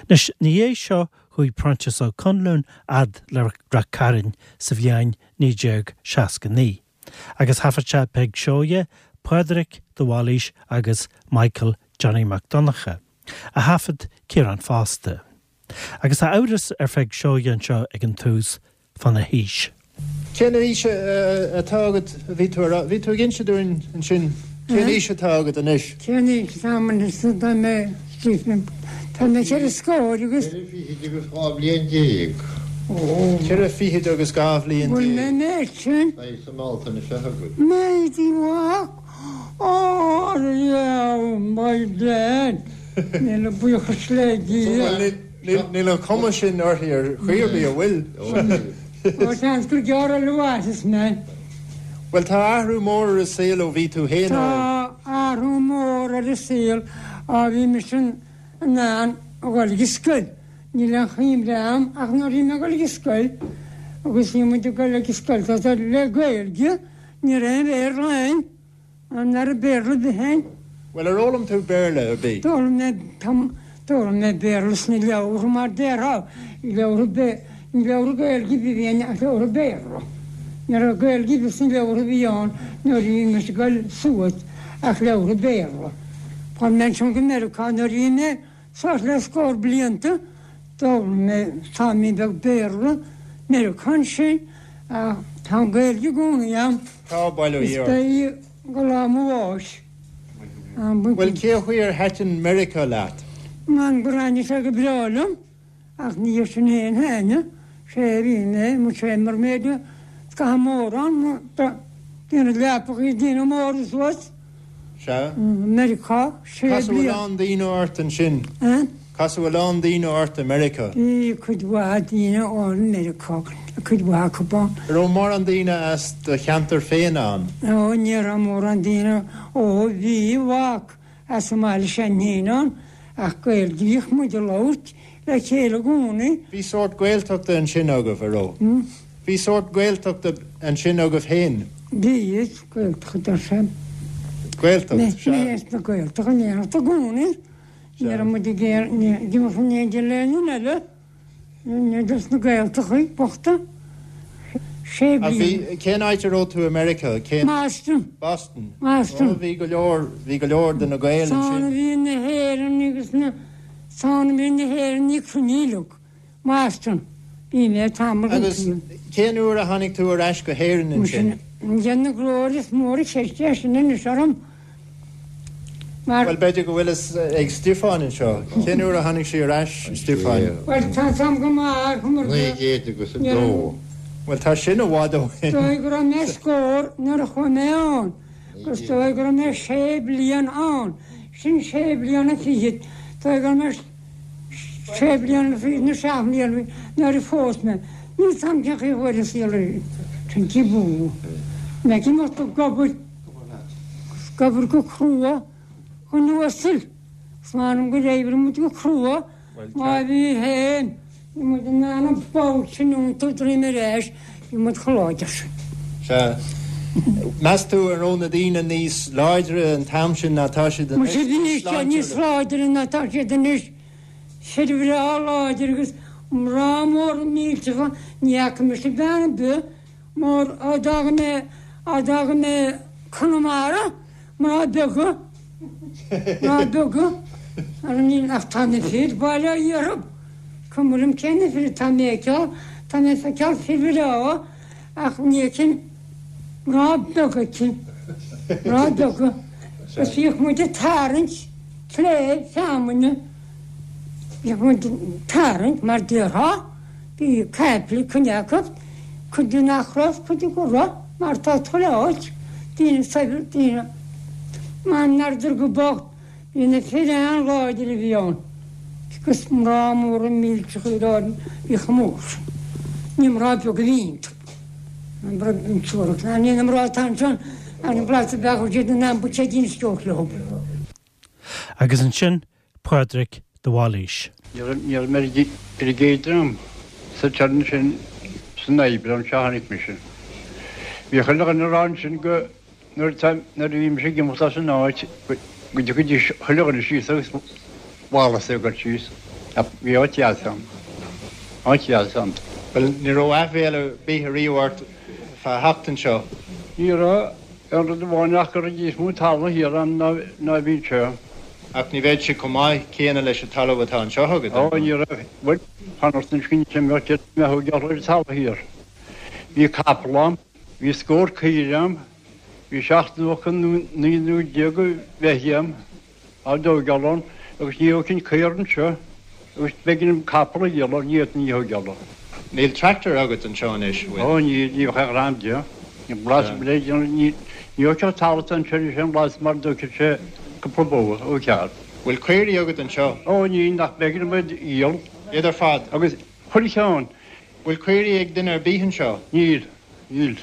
Anois, ina dhiaidh seo chuaigh Proinsias Ó Conluain fhad le Rath Cairn sa bhliain 1969 agus thaifead sé Peig Seoighe, Pádraic de Bhailís agus Michael Johnny Mac Donncha, a thaifead Ciarán fosta. Agus tá amhras ar Pheig Seoighe anseo ag an tús fána haois. Cén aois atá agat a bhí tú a rá? Bhí tú ag inse dúinn ansin cén aois atá agat anois? Cén aois atá agam anois? Tá mé, tá mé cheithre scór agus. Ceithre fichid agus 12 bhliain. Ó. Ceithre fichid agus 12 bhliain. Bhfuil mé an méid sin? Beidh sa mBealtaine seo chugainn. Méid i bhfad. Ó, yeah, my dad. Míle buíochas le Dia. Níl an chuma sin uirthi ar chaoi ar bith, an bhfuil? Ó, seans gur gearr eile a mhairfeas mé. Bhuel, tá athrú mór ar an saol ó bhí tú féin óg. Tá athrú mór ar an saol ó bhí mise in ann a dhul ag an scoil. Níl aon chuimhne a'm ach nuair a bhí mé ag dul ag an scoil agus bhí muid ag dul ag an scoil tá le Gaeilge, ní raibh aon Bhéarla ann. An raibh Béarla ar bith ann? Bhuel, ar fhoghlaim tú Béarla ar bith? D'fhoghlaim mé, d'fhoghlaim mé Béarla sna leabhartha mar déarfá, leabhartha Bé, ní leabhartha Gaeilge a bhí ann ach leabhartha Béarla. Ní raibh Gaeilge ar bith sna leabhartha a bhí ann nuair a bhí mise ag dul suas ach leabhartha Béarla. Tháinig mé ansin go Meiriceá nuair a bhí mé Suas le scór blianta, d'fhoghlaim mé taimín beag Béarla, Meiriceá ansin, ach tá an Ghaeilge i gcónaí a'm. Tá, bail ó Is Dhia ort. beidh go lá mo bháis. Bhuel, cé chaoi ar thaitin Meiriceá leat? M'anam gur thaitnigh sé go breá liom. Ach ní hé sin féin thaitnigh sé bhí mé mo sé mar méid scaitheamh mór ann déanamh leapacha déanamh móra suas. Sea. Meiriceá sé Casadh a bliana. lán daoine ort ansin. Eh? Casadh a lán daoine ort i Meiriceá. Bhí cuid mhaith daoine ann i Meiriceá, cuid mhaith acu ann. An raibh mórán daoine as do cheantar féin ann? Ó, ní raibh mórán daoine, ó bhí, mhac. As an mbaile sin féin ann, ach Gaeilge bhíodh muid a labhairt le chéile i gcónaí. Bhí sórt Gaeltachta ansin agaibh, a raibh? Bhí sórt Gaeltachta ansin agaibh féin? Bhí, is Gaeltacht ar sé. Gaeltacht, sea. Mé as na Gaeltachta in éineacht i gcónaí. Ní raibh muid ag iarraidh imeacht in éindí le aon duine eile. Dos na Gaeltachtaí bochta. Sé Ach bhí, bliana. cén áit a raibh tú i Meiriceá? Cén. Boston. Boston. Boston. Ó, bhí go leor, bhí go leor de na Gaeil Is ann a ansin. bhí na hÉireannaigh agus na, is ann a bhí na hÉireannaigh cruinnithe uilig. Boston. Bhí mé tamall den Agus tsaol. cén uair a tháinig tú ar ais go hÉirinn ansin? Muise, na glóir is mór an cheist é sin anois orm. Mar. Bhuel, b'fhéidir go bhfuil fhios ag Stiofán anseo. Cén uair a tháinig sí ar ais, Stiofáin? Bhuel, tá 'fhios a'm go maith mar go. 902. Bhuel, tá sin i bhfad ó shin. Is dóigh go raibh mé scór nuair a chuaigh mé ann, agus is dóigh go raibh mé sé bliana ann. Sin sé bliana fichead. Is dóigh go raibh mé sé bliana fichead nó seacht mbliana nuair a phós mé. Níl 'fhios a'm cén chaoi a chuaigh an saol ar sin cibé. Mé ag imeacht ag obair. Ag obair go crua chun uasail. Is m'anam gur oibrigh muid go crua má bhí féin, bhí muid in ann an ball sin iontú droim ar ais, bhí muid chomh láidir sin. Sea. Meas tú an raibh na daoine níos láidre an t-am sin ná tá siad anois? Muise bhí siad níos láidre ná tá siad anois. Fir bhreá láidir agus mná móra millteacha, ní fhaca mise bean ar bith Mar á d'fhága mé, á d'fhága mé Conamara, mná beaga, mná beaga, ara níl ach tá na fir, bail ó Dhia orthu, cuma liom cé na fir atá mé a fheiceáil, tá mé ag feiceáil fir bhreá ach ní fheicim mná beaga aici, mná beaga, agus bhíodh muid ag tarraingt cléibh feamainne, bhíodh muid ag tarraingt mar déarfá. Bhí caiple cuid acu, cuid de nach raibh, cuid de go raibh, mar tá chuile áit, daoine saibhir, daoine m'anam go bocht, bhí na fir an-láidir a bhí ann, agus mná móra millteacha ar áirithe, bhí chomh mór sin. Ní mná beaga a bhí iontu. Ní na mná atá ansin, an blas a bheadh siad in ann buiséidín a stiúradh leo. Agus ansin Pádraic de Bhailís. Ní raibh mé ar an gcéad dream sa turn sin san Aibreán seo a tháinig mise. Bhí chuile dhuine ag rá ansin go nuair a bhí mise ag imeacht as an áit go dtiocfaidís chuile dhuine síos agus Wallace ag dul síos. Bhí áit dheas ann. Áit dheas ann. Bhuel, ní raibh aiféala ar bith ariamh ort fá theacht anseo? Ní raibh. Aon rud amháin ach go raibh níos mó talamh thiar ann ná a bhí anseo. Ach ní bheadh sé chomh maith céanna leis an talamh atá anseo agat, Ó, ní raibh. Bhuel, fanacht anois go mbeadh deich mbeadh ag ar an talamh thiar. Bhí capall a'm, bhí scór caoire a'm, bhí 79 nó 19 beithígh a'm. Á dtóigeáil ann agus ní thógfainn caora anseo agus b'éigean dom capall a dhíol ní fhéadfainn í a thóigeáil ann. Níl tractor agat anseo anois, bhfuil? Ó níl, ní bheadh aon ghreim de. Ní blas le déanamh, ní thógfadh an talamh atá anseo anois aon blas mar a dtógfadh sé cúpla bó ó cheart. Bhfuil caoirigh agat anseo? Ó níl, nach b'éigean dom iad a dhíol. Iad ar fad? Agus chuile cheann. Bhfuil caoirigh ag duine ar bith anseo? Níl. Níl.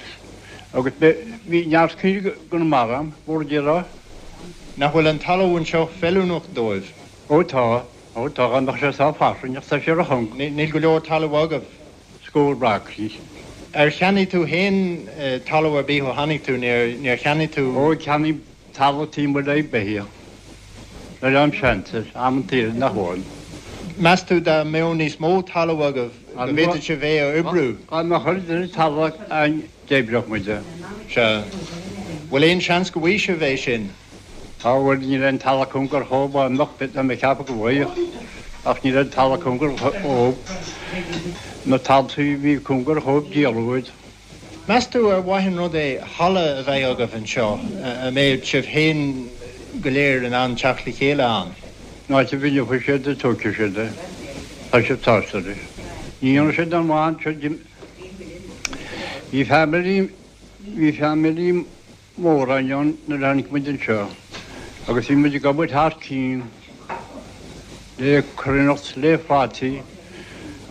Agus bhí neart caoirigh i gConamara a'm, mhór a déarfá. Nach bhfuil an talamh anseo feiliúnach dóibh? Ó tá. Ó tá, dá mbeadh sé sách fairsing, ach tá sé ro-chúng. Níl go leor talaimh agaibh. Scór acraí. Ar cheannaigh tú féin talamh ar bith ó tháinig tú? Níor cheannaigh tú? Ó cheannaigh Talamh taobh amuigh le beithíoch. Nuair a seans, amantaí eile nach bhfuil. Meas tú dá mbeadh níos mó talaimh agaibh go bhféadfadh sibh é a oibriú? Dá mbeadh oiread eile talamh againn d'oibreodh muid é. Sea. Bhfuil aon seans go bhfaighidh sibh é sin? Á bhuel, níl aon talamh cóngar dhóibh, dá mbeadh, tá mé ag ceapadh go bhfaigheadh, ach níl aon talamh cóngar dhóibh. Na taltaí a bhí cóngar dhóibh díoladh iad. Meas tú ar mhaith an rud é halla a bheith agaibh anseo a mbeadh sibh féin go léir in ann teacht le chéile ann? An áit a bhfeilfidh siad é tógfaidh siad é. Tá siad sásta leis. Ní dhéanfaidh siad aon mhaith anseo. Bhí family, bhí family mór ann nuair a tháinig muid anseo agus bhí muid ag obair thar cionn le cruithneacht, le fataí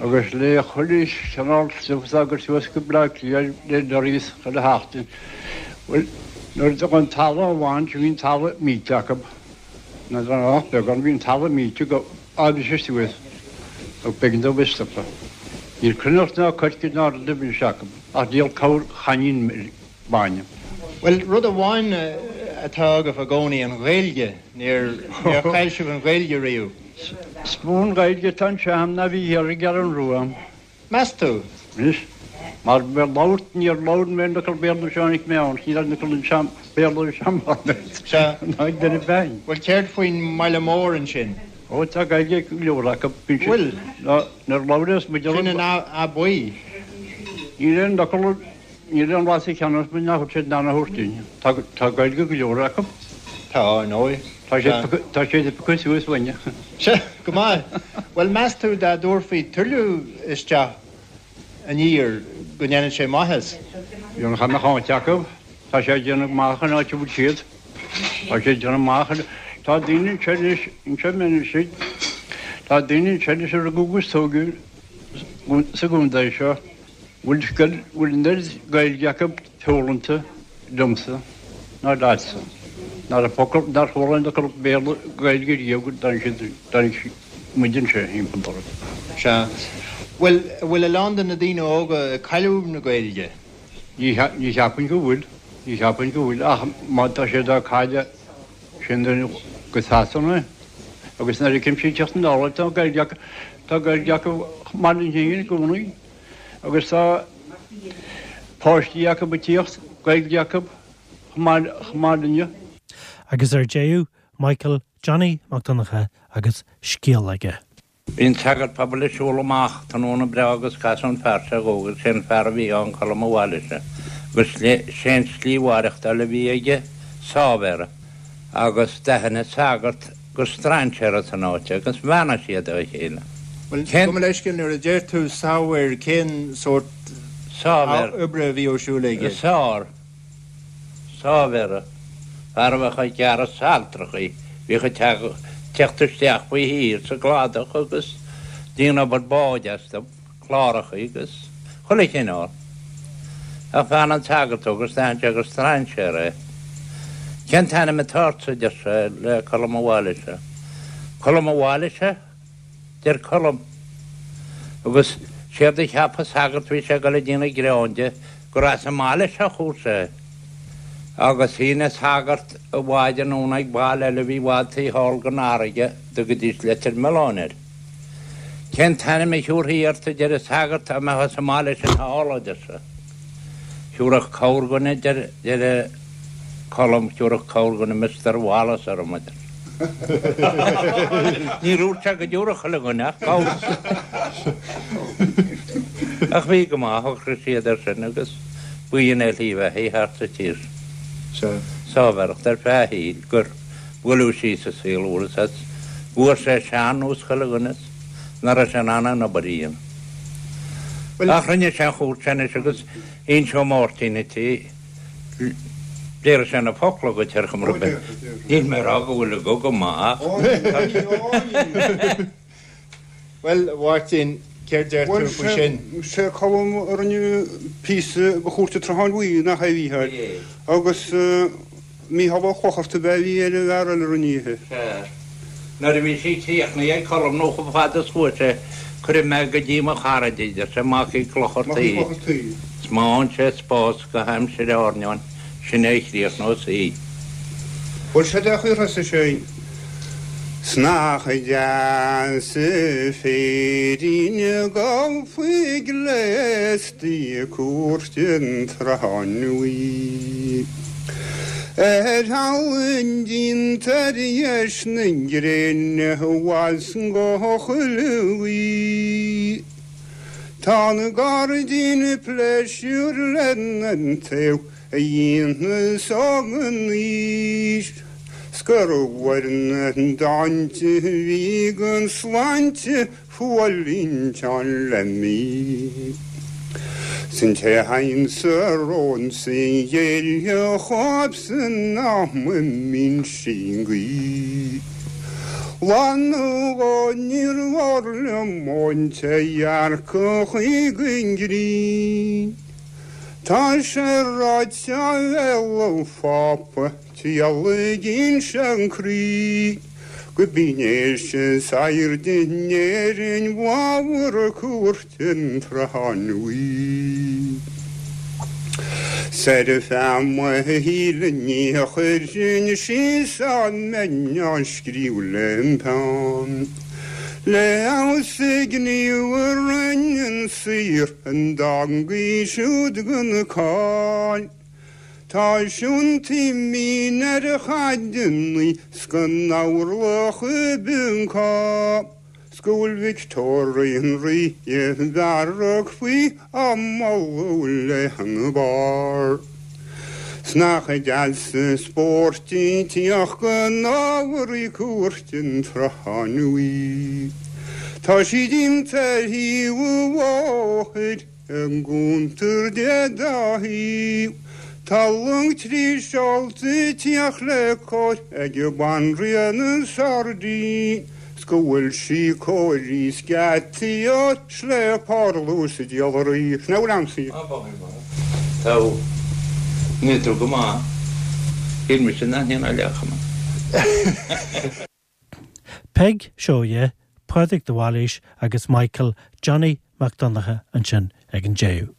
agus le chuile chineál stuif atá ag cur suas go Bleá Cliath le lorries chuile sheachtain. Bhuel, nuair a d'fhág an talamh amháin, bhí an talamh millte acu. N'fheadar an ach beagán, bhí an talamh millte go fhad suas ach b'éigean dóibh stopadh. Níl cruithneacht ná coirce ná rud ar bith acu ach díol corrchainnín bainne. Bhuel, rud amháin atá agaibh i gcónaí, an Ghaeilge. Níor, níor chaill sibh an Ghaeilge riamh. Is mó an Ghaeilge atá anseo agam ná bhí thiar i gCeathrú Rua. Meas tú? Anois, mar bheith labhairt, níor labhair mé aon fhocal Béarla nuair a tháinig mé ann, ní raibh aon fhocal anseo Béarla anseo mar Sea. ná ag duine féin. Bhuel, céard faoin mbaile mór ansin? Ó, tá Gaeilge ag go leor acu. Bhfuil? Nuair a labhraíos muid. Sin an Áth Buí. Níl aon fhocal. Níl aon bhlas sa cheann orthu nach bhfuil siad in ann a thabhairt dúinn. Tá Gaeilge go leor acu. Tá, ar ndóigh. Tá siad, tá siad ag piocadh suas uainne. Sea, go maith. Bhuel, meas tú dá dtabharfaí tuilleadh isteach aniar go ndéanfadh sé maitheas? Dhéanfadh dá mbeadh áit acu. Tá sé ag déanamh maith an áit a bhfuil siad. Tá sé ag déanamh maith. Tá daoine anseo anois, anseo anois, tá daoine anseo anois a rugadh agus tógadh sa gcontae seo. Bhfuil bhfuil an oiread Gaeilge acu foghlamtha liomsa ná leatsa. Ná raibh focal, nár chuala aon fhocal Béarla, Gaeilge riamh go dtáinig siad, dtáinig muid anseo thimpeall orthu. Sea. Bhuel, bhfuil a lán de na daoine óga ag cailleadh na Gaeilge? Ní, ní cheapaim go bhfuil, ní cheapaim go bhfuil ach má tá siad á cailleadh sin go Sasana agus nuair a fheicim siad teacht anall tá Gaeilge acu, tá Gaeilge acu chomh maith linn féin i gcónaí. Agus tá páistí acu ag tíocht, Gaeilge acu chomh maith linne. Agus ar deireadh, Michael Johnny Mac Donncha agus scéal aige. Bhí an sagart pobail ag siúl amach tráthnóna breá agus casadh an fear seo dhó agus sé an fear a bhí ann Colm a' bhaile seo agus sé an slí mhaireachtáil a bhí aige sáibhéara agus d'aithin an sagart gur strainséir as an áit é agus bheannaigh siad dá chéile. Bhuel, gabh mo leithscéal, nuair a deir tú sábhéir, cén sórt Sábhéir. oibre a bhí ar siúl aige? Sár. Sábhéara. Fear a bheadh ag gearradh saltrachaí, bhíodh ag teacht isteach faoi thír sa gcladach agus déanamh obair báid astu. clárachaí agus chuile chineál. Ach bheannaigh an sagart dó agus d'aithin sé gur strainséir é. Cén t-ainm atá ortsa, a deir sé le Colm a' bhaile seo. Colm a' bhaile seo? deir Colm. Agus séard a cheap an sagart bhí sé ag dul ag déanamh greann de gur as an mbaile seo a chuaigh sé. Agus shín an sagart a bhád anonn ag baile eile a bhí i bhfad taobh thall den fharraige, dtugaidís Leitir Mealláin air. Cén t-ainm a thiúrfaí ort a deir an sagart dá mbeifeá sa mbaile sin thall, a deir sé. Thiúrfadh corrdhuine, a deir Colm, thiúrfadh corrdhuine Mister Wallace orm, a deir sé. Níor dhúirt sé go dtiúrfadh chuile dhuine ach corr. Ach bhí go maith, shocraigh siad air sin agus b'in é a shlí bheatha thart sa tír sin. Sáibhéireacht ar feadh a shaoil gur buaileadh síos sa saol úr is as fuair sé sean nós chuile dhuine is nach raibh sé in ann an obair a dhéanamh. Ach rinne sé an chúirt anois agus inseoidh Máirtín duit í. Déarfaidh sé na focla dhuit ar chuma ar bith. Níl mé ag rá go bhfuil a guth go maith ach. Bhuel, a Mháirtín, céard deir tú faoi sin? Bhuel, sé Colm a rinne píosa do Chúirt an tSrutháin Bhuí, nach é a Mhícheáil? Agus Mícheál Ó Clochartaigh ab ea a bhí ar an bhfear eile a rinne í. Sea. Nuair a bhí sí críochnaithe ag Colm nó chomh fada is chuaigh sé, cuirfidh mé go dtí mo charaid í, deir sé, Mac Uí Chlochartaigh. Is má fhaigheann sé spás go haimsir airneáin, sin é a chríochnós í. Bhuel, seo é an chaoi a thosaigh sé. 'S nach deas an féirín ag gabháil faoi gléasta ag Cúirt an tSrutháin Bhuí. Ar thalamh díonta ar dheis na gréine abhus go chuile ghaoth. Tá na gairdín pléisiúr lena dtaobh a dhéanamh an aois 's gur mhair na dánta a bhí gan sláinte fuailínteán le mí. 'S an té a thagann sa rónsa ghéillfeadh dhóibhsean am a mbíonn sí an ghaoth. Lá nó dhó níor mhór liom ón té dhearcadh chuig an ngrian. Tá sé ráite ó bhéal an Phápa triallaigh inse an croí go b'in é is airde in Éirinn bhláthmhar Cúirt an tSrutháin Bhuí. 'S ar feadh mo shaoil ní chuirfinn síos dá mbeinn á scríobh lem pheann. Le fheabhas a gníomh a rinne an saor an dteangaidh siúd gan cáil. Tá siúntaí mín ar a chaideannaí 's go n-amharlach i bPincá. 'S go bhfuil Victoria an Rí i bhfearg faoi á moladh lena barr. 'S nach deas an spórt í teacht go n-ámharaí Cúirt an tSrutháin Bhuí. Tá sí déanta ar thaobh an bhóthair i gcuntar dé dá thaobh. Tá long trí seolta ag tíocht le cóir ag an Banríon an Sairdín 's go bhfuil sí cóirithe 's geataí óir 's le parlús diallraí. Sin é a bhfuil a'msa. Tá. Níl tú go maith. Shíl mise nach ndéanfá leath chuma. Peig Seoighe, Pádraig de Bhailís agus Michael Johnny Mac Donncha ansin ag an deireadh.